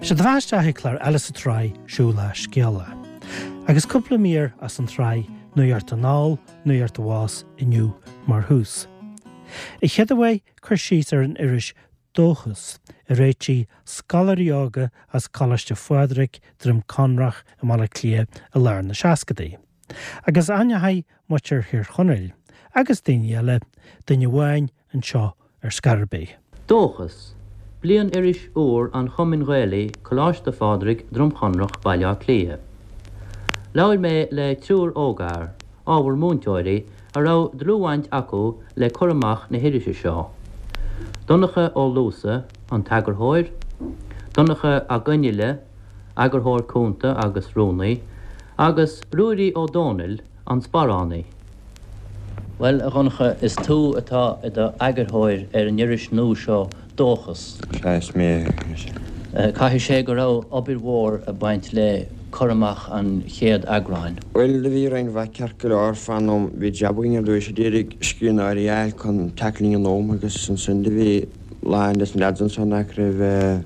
Sé do bheatha isteach ag clár eile sa tsraith Siúl le Scéala. Agus cúpla mír as an tsraith Nuacht Anall, Nuacht Abhus inniu mar thús. An chéad uair cur síos ar an iris Dóchas, a réitigh scoláirí óga as Coláiste Phádraig, Droim Conrach i mBaile Átha Cliath i lár na seascadaí. Agus aithneoidh muintir Thír Chonaill, agus daoine eile, duine amháin anseo ar scor ar bith. Dóchas, Bliain-iris úr an Chumainn Ghaelaigh, Coláiste Phádraig, Droim Chonrach, Baile Átha Cliath. Labhair mé le triúr ógfhear, ábhar múinteoirí, a raibh dlúthbhaint acu le cur amach na hirise seo, Donncha Ó Luasa, an t-eagarthóir, Donncha 'Ac Fhionnghaile, eagarthóir cúnta agus rúnaí, agus Ruairí Ó Dónaill, an sparánaí. Bhuel, a Dhonncha, is tú atá i do eagarthóir ar an iris nua seo, Dóchas. Sea, is mé é. Caithfidh sé go raibh obair mhór ag baint le cur amach an chéad eagráin. Bhuel, do bhí roinnt mhaith ceart go leor fán am. Bhí jab againn ar dtúis a d'iarraidh scríbhneoirí a fháil chun teacht linn in am agus ansin do bhí lán des na leaids anso nach raibh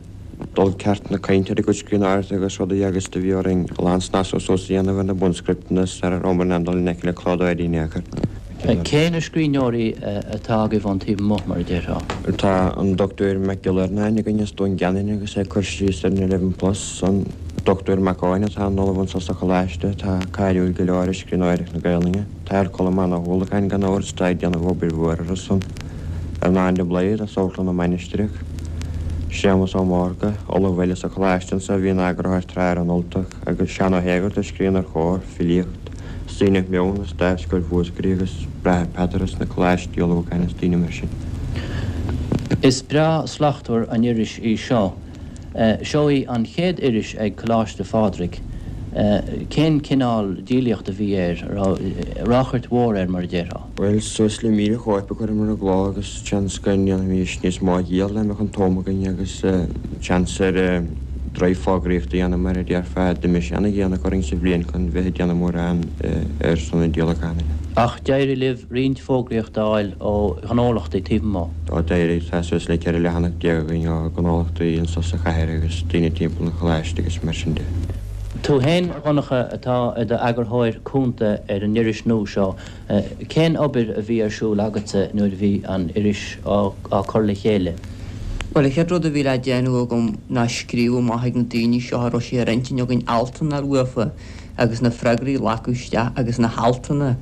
dul ceart na cainte ar a gcuid scríbhneoireachta agus rudaí agus do bhí orainn a lán snasú suas a dhéanamh ar na bunscripteanna sara rabhamar in ann dul i ngleic le clódóirí in aon chor. Cé na scríbhneoirí atá agaibh ón taobh amuigh, mar a déarfá? Tá an Dochtúir Mac Giolla Iarnáin againn as Dún Geanainn agus é ag cur síos ar an Eleven Plus, an Dochtúir Mac Eoin atá ina ollamh anso sa Choláiste atá cáiliúil go leor i scríbhneoireacht na Gaelainne. Tá Colmán Ó hUallacháin gan amhras atá ag déanamh obair mhór ar a son. Earnán de Blaghad as Amharclann na Mainistreach, Séamus Ó Mórdha, ollamh eile sa Choláiste anso a bhí ina eagarthóir tráth ar an Ultach, agus Seán Ó hÉigeartaigh a scríonn ar Chomhar, filíocht, is daoine Meon as Dámhscoil Mhúscraí agus Bráthair Peadar as na Coláistí Ullmhúcháin is daoine mar sin. Is breá slachtmhar an iris í seo. Seo í an chéad iris ag Coláiste Phádraig. Cén cineál díolaíocht a bhí air? Raibh ráchairt mhór air mar a déarfá? Bhuel, suas le 1,000 chóip a chuireamar i gcló agus seans go ndéanfaimis níos mó a dhíol dá mbeadh an t-am againn agus seans ar drive fógraíochta a dhéanamh mar a déarfá. D'imigh sé ana-dhéanach orainn sa bhliain chun bheith ag déanamh mórán ar son an díolacháin. Ach d'éirigh libh roinnt fógraíocht a fháil ó ghnólachtaí taobh amuigh. Ó d'éirigh, tá suas le 14 leathanach againn ó ghnólachtaí anso sa chathair agus daoine timpeall an choláiste agus mar sin de. Tú féin, a Dhonncha, atá i do eagarthóir cúnta ar an iris nua seo, cén obair a bhí ar siúl agatsa nuair a bhí an iris á cur le chéile? Bhuel, an chéad rud a bhí le déanamh agam ná scríobh amach ag na daoine seo a raibh sé ar intinn againn altanna uafa agus na freagraí a ghlacadh isteach agus na haltanna.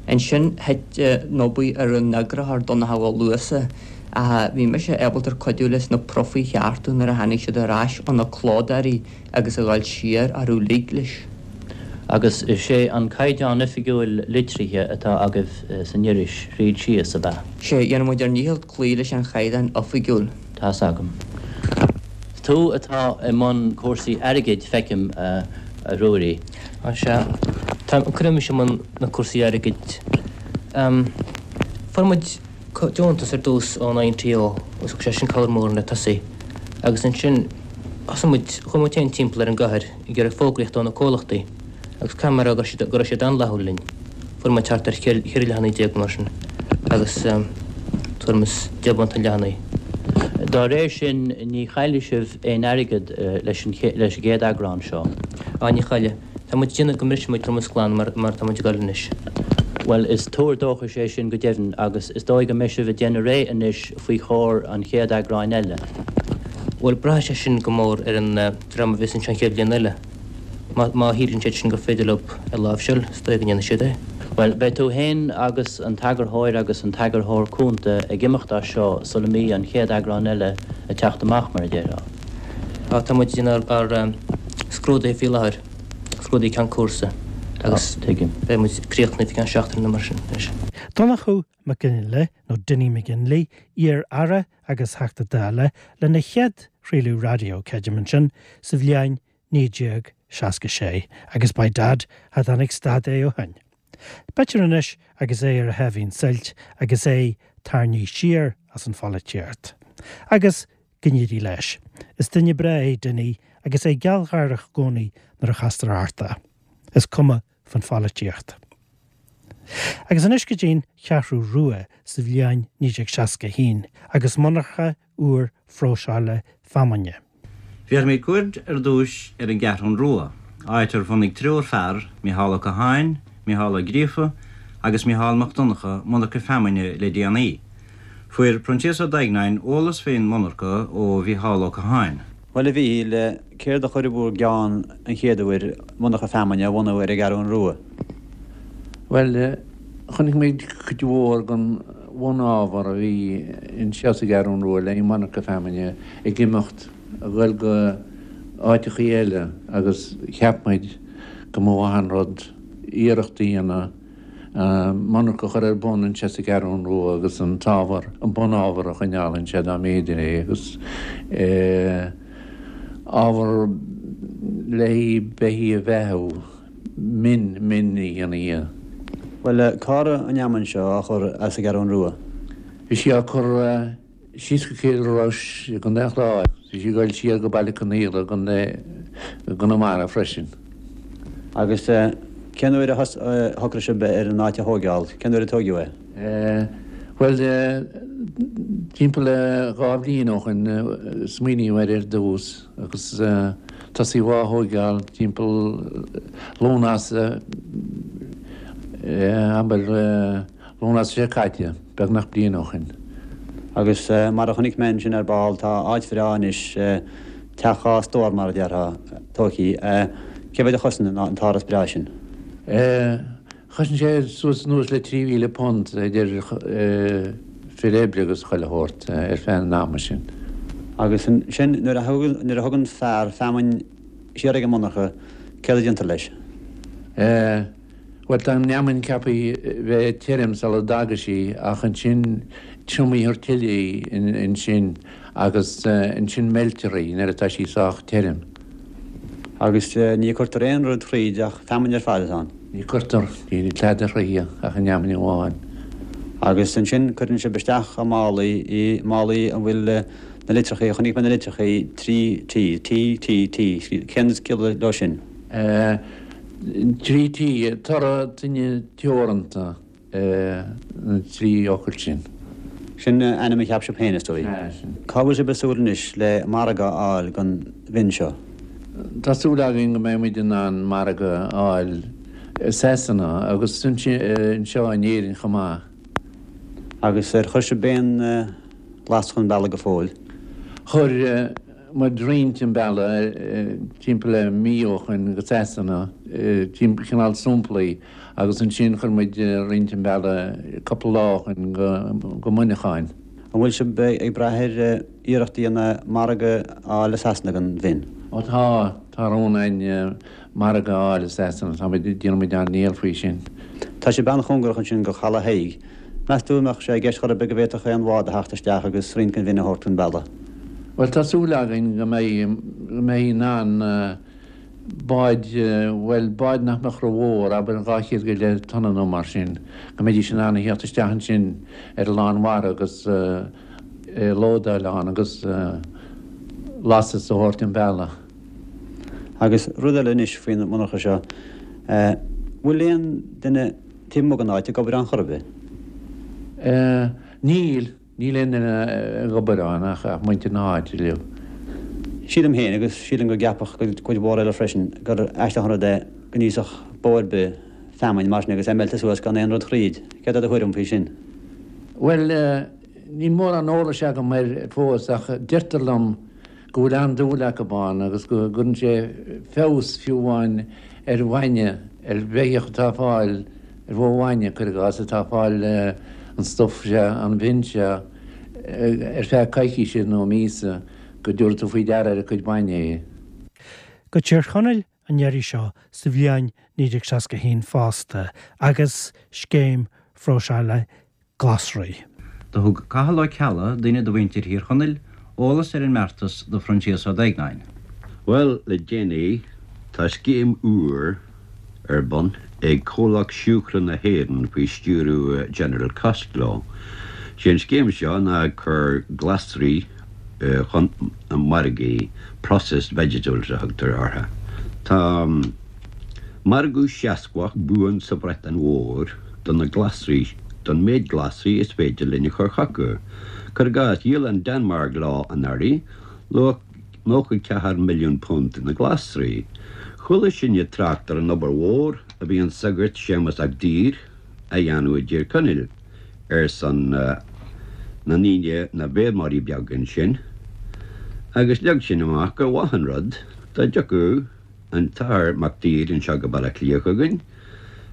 Ansin thit an obair ar an eagarthóir Donncha Ó Luasa ach bhí mise ábalta cuidiú leis na profaí a cheartú nuair a tháinig siad ar ais ó na clódóirí agus a dhul siar orthu uilig leis. Agus is é an caighdeán oifigiúil litrithe atá agaibh san iris thríd síos, ab ea? Sea, dhéanann muid ár ndícheall cloí leis an chaighdeán oifigiúil. Tá's agam. Tú atá i mbun cúrsaí airgid, feicim, a Ruairí. Á sea. Tá, cuireadh mise i mbun na cúrsaí airgid. Fuair muid deontas ar dtús ón INTO agus thug sé sin cabhair mhór le tosaí. Agus ansin thosaigh muid, chuaigh muid féin timpeall ar an gcathair ag iarraidh fógraíocht ó na comhlachtaí agus caithfidh mé a rá go raibh siad, go raibh siad an-fhlaithiúil linn. Fuair muid thart ar cheithre leathanaigh déag nó mar sin agus tuairim is 10 bpunt an leathanaigh. Dá réir sin, ní chaillfidh sibh aon airgead leis an gcéad eagrán seo. Á, ní chaillfidh. Tá muid ag déanamh go mbrisfidh muid drommas glan mar mar atá muid ag dul anois. Bhuel, is tuar dóchais é sin go deimhin agus is dóigh go mbeidh sibh ag déanamh réidh anois faoi chomhair an chéad eagráin eile. Bhuel, braithfidh sé sin go mór ar an dream a bheas anseo an chéad bhliain eile. Má shíleann siad sin gur féidir leo é a láimhseáil, is dóigh go ndéanfaidh siad é. Bhuel, beidh tú féin agus an t-eagarthóir agus an t-eagarthóir cúnta ag imeacht as seo sula mbí an chéad eagrán eile ag teacht amach, mar a déarfá. Á, tá muid ag déanamh ár scrúduithe faoi láthair, scrúduithe ceann cúrsa, agus beidh muid críochnaithe faoi cheann seachtaine nó mar sin anois. Donnchadh Mac Fhionnghaile, nó Dinny McGinley, iar-aire agus Theachta Dála, lena chéad chraoladh raidió, creidim, ansin sa bhliain 1966, agus by dad, cha dtáinig stad é ó shin. B'fhéidir anois agus é ar a sháimhín suilt agus é tarraingthe siar as an pholaitíocht. Agus go n-éirí leis. Is duine breá é Dinny agus é gealgháireach i gcónaí nuair a chastar ort é. Is cuma fan pholaitíocht. Agus anois go dtí'n Cheathrú Rua sa bhliain 1961 agus monarcha úr phróiseála feamainne. Bhéarfaimid cuaird ar dtúis ar an gCeathrún Rua, áit ar bhunaigh triúr fear, Micheál Ó Catháin, Micheál Ó Gríofa agus Micheál Mac Donncha, monarcha feamainne le déanaí. Fuair Proinsias Ó Duigneáin eolas faoin monarcha ó Mhicheál Ó Catháin. Bhuel, a Mhíchíl, céard a chuir i bhúr gceann an chéad uair monarcha feamainne a bhunú ar an gCeathrún Rua? Bhuel, chonaic muid cuid mhór den bhunábhar a bhí anseo sa gCeathrún Rua le haghaidh monarcha feamainne ag imeacht ag goil go áiteachaí eile agus cheap muid go mba mhaith an rud iarracht a dhéanamh monarcha a chur ar bun anseo sa gCeathrún Rua agus an t-ábhar, an bunábhar a choinneáil anseo dá mb'fhéidir é agus ábhar le haghaidh beithígh a bheathú, min, min a dhéanamh dhe. Bhuel, cá raibh an fheamainn seo á chur as an gCeathrún Rua? Bhí sí á cur Síos go Cill Rois i gContae an Chláir. Bhí sí ag goil siar go Baile Conaola i gContae i gConamara freisin. Agus cén uair a shocraigh sibh ar an áit a thóigeáil? Cén uair a tóigeadh é? Bhuel, timpeall le 2 bhliain ó shoin smaoiníodh air ar dtús agus tosaíodh á thóigeáil timpeall Lúnasa, abair, Lúnasa seo caite, beagnach bliain ó shin. Agus mar a chonaic mé ansin ar ball, tá áit bhreá anois, teach 2 stór mar a déarfá, tóigthí. Cé mhéad a chosain an t-áras breá sin? Chosain sé suas anuas le £3,000 idir fir oibre agus chuile shórt ar feadh an ama sin. Agus ansin nuair a thugann fear feamainn siar ag an monarcha, céard a déantar leis? Bhuel, tá an fheamainn ceaptha bheith tirim sula dtaga sí, ach ansin triomaítear tuilleadh í ansin agus ansin meiltear í nuair atá sí sách tirim. Agus ní cuirtear aon rud thríd ach feamainn ar fad atá ann? Ní cuirtear, níl tada thríthi ach an fheamainn amháin. Agus ansin cuireann sibh isteach i málaí í, málaí a bhfuil na litreachaí, chonaic mé na litreachaí 3 T, T, T, T, cén ciall leo sin? 3 T, Toradh Tine Teoranta, na trí fhocal sin. Sin ainm a cheap sibh féin, is dóigh. Sea, sin. Cá bhfuil sibh ag súil anois le margadh a fháil don mhin seo? Tá súil againn go mbeidh muid in ann margadh a fháil i Sasana agus anseo in Éirinn chomh maith. Agus ar chuir sibh aon ghlas chun bealaigh go fóill? Chuir. muid roinnt chun bealaigh timpeall le mí ó shoin go Sasana, cineál samplaí, agus ansin chuir muid roinnt chun bealaigh cúpla lá ó shoin go Muineachán. An bhfuil sibh ag brath ar iarracht a dhéanamh margadh a fháil i Sasana don mhin? Ó tá, tá rún againn margadh a fháil i Sasana, tá muid, déanann muid ár ndícheall faoi sin. Tá sibh an-chóngarach ansin go Chaladh Thaidhg. Meas tú an mbeadh sé i gceist chor ar bith go bhféadfadh aon bhád a theacht isteach agus roinnt den mhin a thabhairt chun bealaigh? Bhuel, tá súil againn go mbeidh, go mbeidh in ann báid, bhuel, báid nach mbeadh ró-mhór, abair 200 go leith tonna nó mar sin, go mbeidís in ann a theacht isteach ansin ar an lánmhara agus lódáil ann agus lastas a thabhairt chun bealaigh. Agus rud eile anois faoin monarcha seo, bhfuil aon duine taobh amuigh den áit ag obair ann chor ar bith? Níl, níl aon duine ag obair ann ach muintir na háite uilig. Sílim féin, agus sílim go gceapfadh cuid mhór eile freisin, gur aisteach an rud é go n-íosfadh bó ar bith feamainn mar sin agus é meilte suas gan aon rud thríd. Céard é do thuairim faoi sin? Bhuel, níl mórán eolais agam air fós ach deirtear liom go bhfuil an-dúil acu ann agus go gcuireann sé feabhas fiú amháin ar bhainne, ar bheithíoch atá ag fáil, ar bhó bhainne, cuir i gcás, atá ag fáil an stuif seo, an mhin seo, ar feadh coicíse nó míosa, go dtabharfaidh tú faoi deara ar a cuid bainne é. Go Tír Chonaill an iarraidh seo sa bhliain 1961 fosta agus scéim phróiseála glasraí. Do thug Cathal Ó Ceallaigh, duine de mhuintir Thír Chonaill, eolas ar an mbeartas do Phroinsias Ó Duigneáin. Bhuel, le déanaí, tá scéim úr ar bun ag Comhlacht Siúcra na hÉireann faoi stiúradh General Costello. Sé an scéim seo ná ag cur glasraí chun na margaí, processed vegetables a thugtar orthu. Tá. Margadh seasmhach buan sa Bhreatain Mhór do na glasraí, don méid glasraí is féidir linn a chur chucu. Cuir i gcás, dhíol an Danmhairg leo anuraidh, luach. £94 milliún na glasraí. Chuala sinne trácht ar an obair mhór a bhí an sagart Séamus 'Ac Daoir a dhéanamh i dTír Chonaill ar son na ndaoine, na bhfeirmeoirí beaga ansin, agus leag sin amach gur mhaith an rud dá dtiocfadh an tAthair Mac Daoir anseo go Baile Átha Cliath chugainn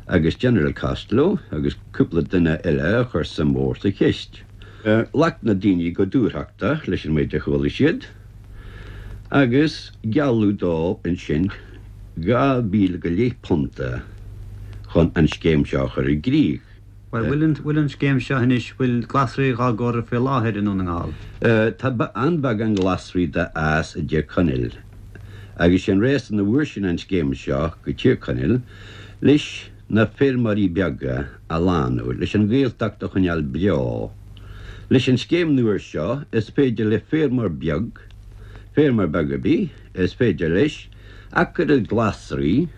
agus General Costello agus cúpla duine eile a chuir suim mhór sa cheist. Ghlac na daoine go dúthrachtach leis an méid a chuala siad agus gealladh dóibh ansin £12,000 chun an scéim seo a chur i gcrích. Bhuel, bhfuil an scéim seo anois, bhfuil glasraí dhá gcur faoi láthair i nDún na nGall? Tá an-bheagán glasraí dá fhás i dTír Chonaill agus sé an réasún a bhfuair sin an scéim seo go Tír Chonaill leis na feirmeoirí beaga a shlánú, leis an Ghaeltacht a choinneáil beo. Leis an scéim nua seo is féidir le feirmeoir beag, feirmeoir beag ar bith, is féidir leis acra glasraí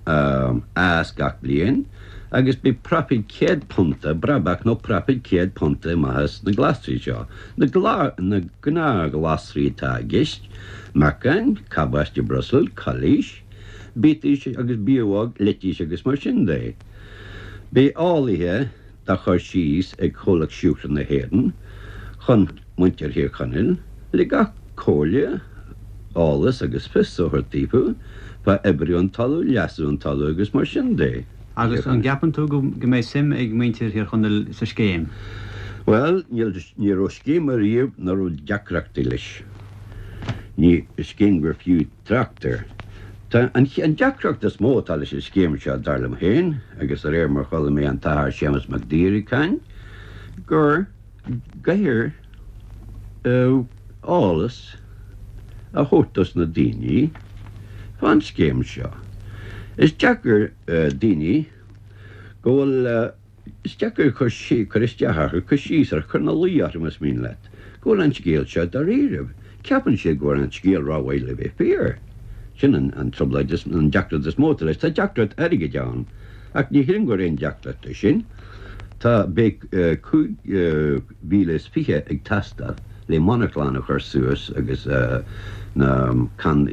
a fhás gach bliain agus beidh proifid £100, brabach nó proifid £100 amach as na glasraí seo. Na gnáth-ghlasraí atá i gceist, meacain, cabáiste Brussels, calaois, biataís agus biabhóg, leitís agus mar sin de. Beidh eolaithe dá chur síos ag Comhlacht Siúcra na hÉireann chun muintir Thír Chonaill le gach comhairle, eolas agus fios a thabhairt daofa fá oibriú an talaimh, leasú an talaimh agus mar sin de. Agus an gceapann tú go mbeidh suim ag muintir Thír Chonaill sa scéim? Bhuel, níl, ní raibh scéim ariamh nach raibh deacrachtaí leis. Ní scéim gur fiú trácht air. Tá an deacracht is mó atá leis an scéim seo, dar liom féin, agus de réir mar chuala mé an tAthair Séamus Mac Daoir ag caint, gur gcaithfear eolas a thabhairt dos na daoine fán scéim seo. Is deacair daoine go bhfuil. Is deacair cur cur isteach orthu, cur síos orthu, cur ina luí orthu más mian leat, go bhfuil an scéal seo dáiríribh. Ceapann siad go bhfuil an scéal rómhaith le bheith fíor. Sin an an trioblóid is, an deacracht is mó atá leis. Tá deacracht airgid ann, ach ní shílim gur aon deacracht é sin. Tá, beidh 25,000 ag teastáil le monarchlann a chur suas agus na can,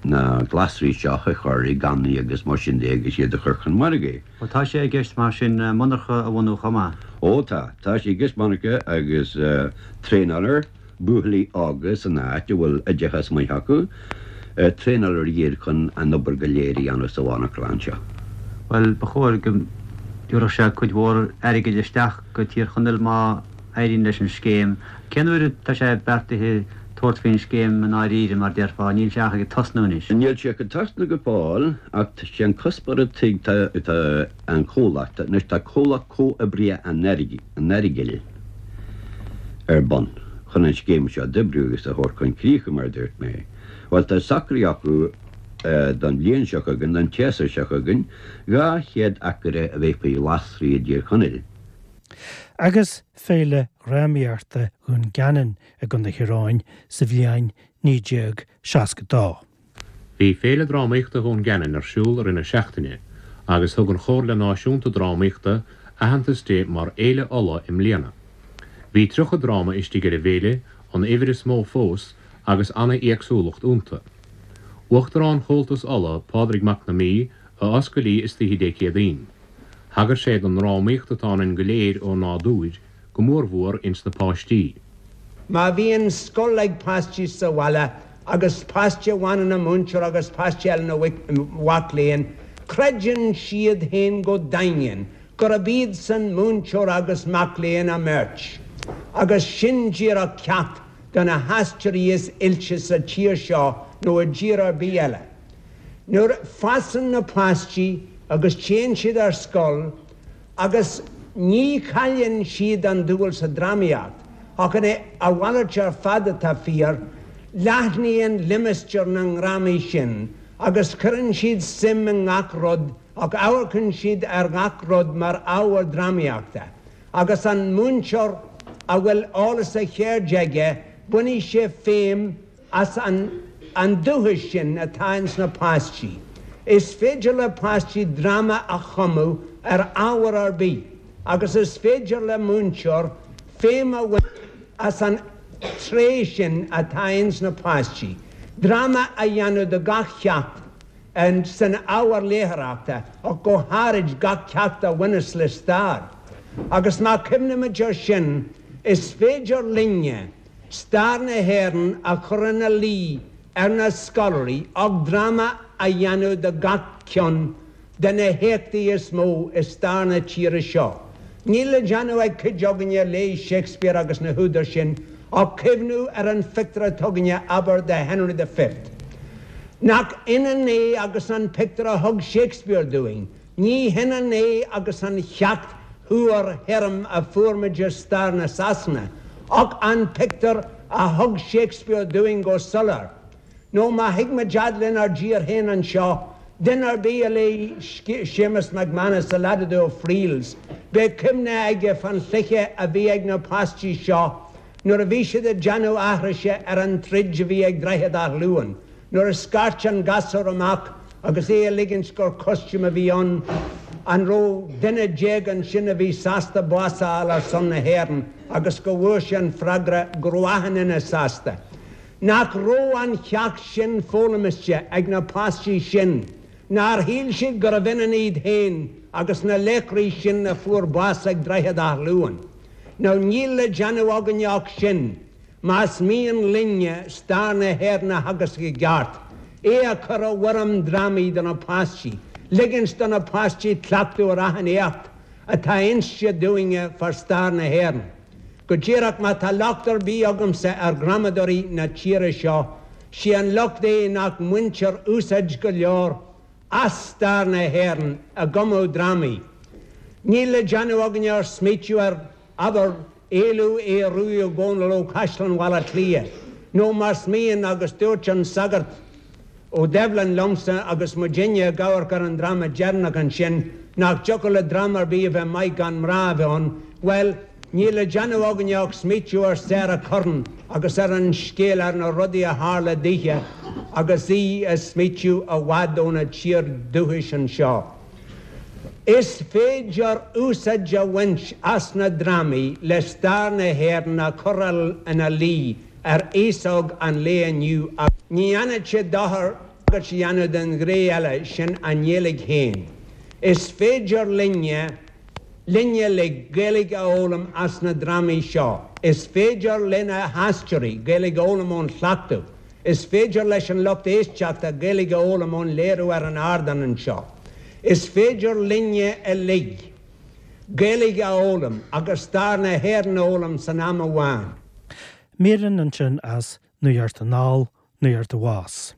na glasraí seo a chur i gcannaí agus mar sin de agus iad a chur chun margaidh. Ó tá sé i gceist mar sin monarcha a bhunú chomh maith. Ó tá. Tá sé i gceist monarcha agus traenálar buachaillí óga san áit a bhfuil oideachas maith acu, traenálar iad chun an obair go léir a dhéanamh sa mhonarchlann seo. Bhuel, ba chóir go dtabharfadh sé cuid mhór airgid isteach go Tír Chonaill má éiríonn leis an scéim. Cén uair atá sé beartaithe tabhairt faoin scéim i ndáiríre, mar déarfá? Níl sé ach ag tosnú anois. Níl sé ag tosnú go fóill, ach sé an cuspóir atá ag an chomhlacht, anois tá Comhlacht Comhoibrithe an Earagail ar bun chun an scéim seo d'oibriú agus a thabhairt chun críche, mar a dúirt mé. Bhuel, tá socraithe acu don bhliain seo chugainn, don tséasúr seo chugainn, 200 acra a bheith faoi ghlasraí i dTír Chonaill. Agus Féile Dhrámaíochta Dhún Geanainn i gContae Thír Eoghain sa bhliain 1962. Bhí Féile Drámaíochta Dhún Geanainn ar siúl i rith na seachtaine agus thug an Chomhairle Náisiúnta Drámaíochta aitheantas di mar Fhéile Uladh i mbliana. Bhí 30 dráma istigh ar an bhféile, an uimhir is mó fós, agus ana-éagsúlacht iontu. Uachtarán Chomhaltas Uladh, Pádraig Mac na Mí, a oscail í istoíche Dé Céadaoin. Thagair sé don ndrámaíocht atá ionainn go léir ó nádúir, go mórmhór ins na páistí. Má bhíonn scoil ag páistí sa bhaile agus páiste amháin ina mhúinteoir agus páiste eile ina mhac léinn, creideann siad féin go daingean gurb iadsan múinteoir agus mac léinn a mbeirt. Agus sin díreach ceacht do na haisteoirí is oilte sa tír seo nó i dtír ar bith eile. Nuair fásann na páistí agus téann siad ar scoil agus ní chailleann siad an dúil sa drámaíocht, ach a mhalairt ar fad atá fíor, leathnaíonn limistéar na ndrámaí sin agus cuireann siad suim i ngach rud ach amharcann siad ar ghach rud mar ábhar drámaíochta. Agus an múinteoir a bhfuil eolas a cheirde aige, bainfidh sé feidhm as an an dúchas sin atá ins na páistí. Is féidir le páistí dráma a chumadh ar ábhar ar bith agus is féidir le múinteoir feidhm a bhaint as an. tréith sin atá ins na páistí, dráma a dhéanamh de gach ceacht san ábhar léitheoireachta ach go háirid gach ceacht a bhaineas le stair. Agus má chuimhnímid air sin, is féidir linne stair na hÉireann a chur ina luí ar na scoláirí ach dráma a dhéanamh de gach ceann de na héachtaí is mó i stair na tíre seo. Níl le déanamh ag cuid againne a léigh Shakespeare agus na húdair sin ach cuimhniú ar an phictiúr atá againne, abair, de Henry the Fifth. Nach ionann é agus an pictiúr a thug Shakespeare dúinn? Ní hionann é agus an cheacht fhuar thirim a fuair muid i stair na Sasana, ach an pictiúr a thug Shakespeare dúinn go soiléir. Nó má thig muid fhad lenár dtír féin anseo, duine ar bith a léigh Séamus McManus, The Lad of the O'Friels, beidh cuimhne aige fán chluiche a bhí ag na páistí seo nuair a bhí siad ag déanamh aithrise ar an troid a bhí ag Droichead Átha Luain, nuair a scairt an gasúr amach agus é ag ligint gur costume a bhí ann, an raibh duine déag ansin a bhí sásta bás a fháil ar son na hÉireann agus go bhfuair sé an freagra go raibh achan duine sásta. Nach raibh an cheacht sin foghlamiste ag na páistí sin? Nár shíl siad gurbh ionann iad féin agus na laochraí sin a fuair bás ag Droichead Átha Luain? Now níl le déanamh againne ach sin, más mian linne stair na hÉireann a theagasc i gceart, é a chur i bhfoirm drámaí do na páistí, ligint do na páistí cleachtadh ar achan éacht atá inste dúinne fá stair na hÉireann. Go díreach, má tá locht ar bith agamsa ar ghramadóirí na tíre seo, sé an locht é nach mbaintear úsáid go leor as stair na hÉireann i gcumadh drámaí. Níl le déanamh againne ach smaoitiú ar, abair, éalú Aodh Ruadh Ó Dónaill ó Chaisleán Bhaile Átha Cliath, nó más mian, agus dúirt an Sagart Ó Doibhlin liomsa agus muidinne ag amharc ar an dráma deireanach ansin, nach dtiocfadh le dráma ar bith a bheith maith gan mná a bheith ann, bhuel, níl le déanamh againne ach smaoitiú ar Sarah Curran agus ar an scéal, ar na rudaí a tharla daoithe agus í ag smaoitiú i bhfad óna tír dúchais anseo. Is féidir úsáid a bhaint as na drámaí le stair na hÉireann a chur ina luí ar aos óg an lae inniu agus ní dhéanfadh sé dochar tagairt a dhéanamh don ghné eile, sin an nGaeilge féin. Is féidir linne, linne uilig, Gaeilge a fhoghlaim as na drámaí seo. Is féidir lena haisteoirí Gaeilge a fhoghlaim ón chleachtadh. Is féidir leis an lucht éisteachta Gaeilge a fhoghlaim ón léiriú ar an ardán anseo. Is féidir linne uilig Gaeilge a fhoghlaim agus stair na hÉireann a fhoghlaim san am amháin. Míreanna ansin as Nuacht Anall, Nuacht Abhus.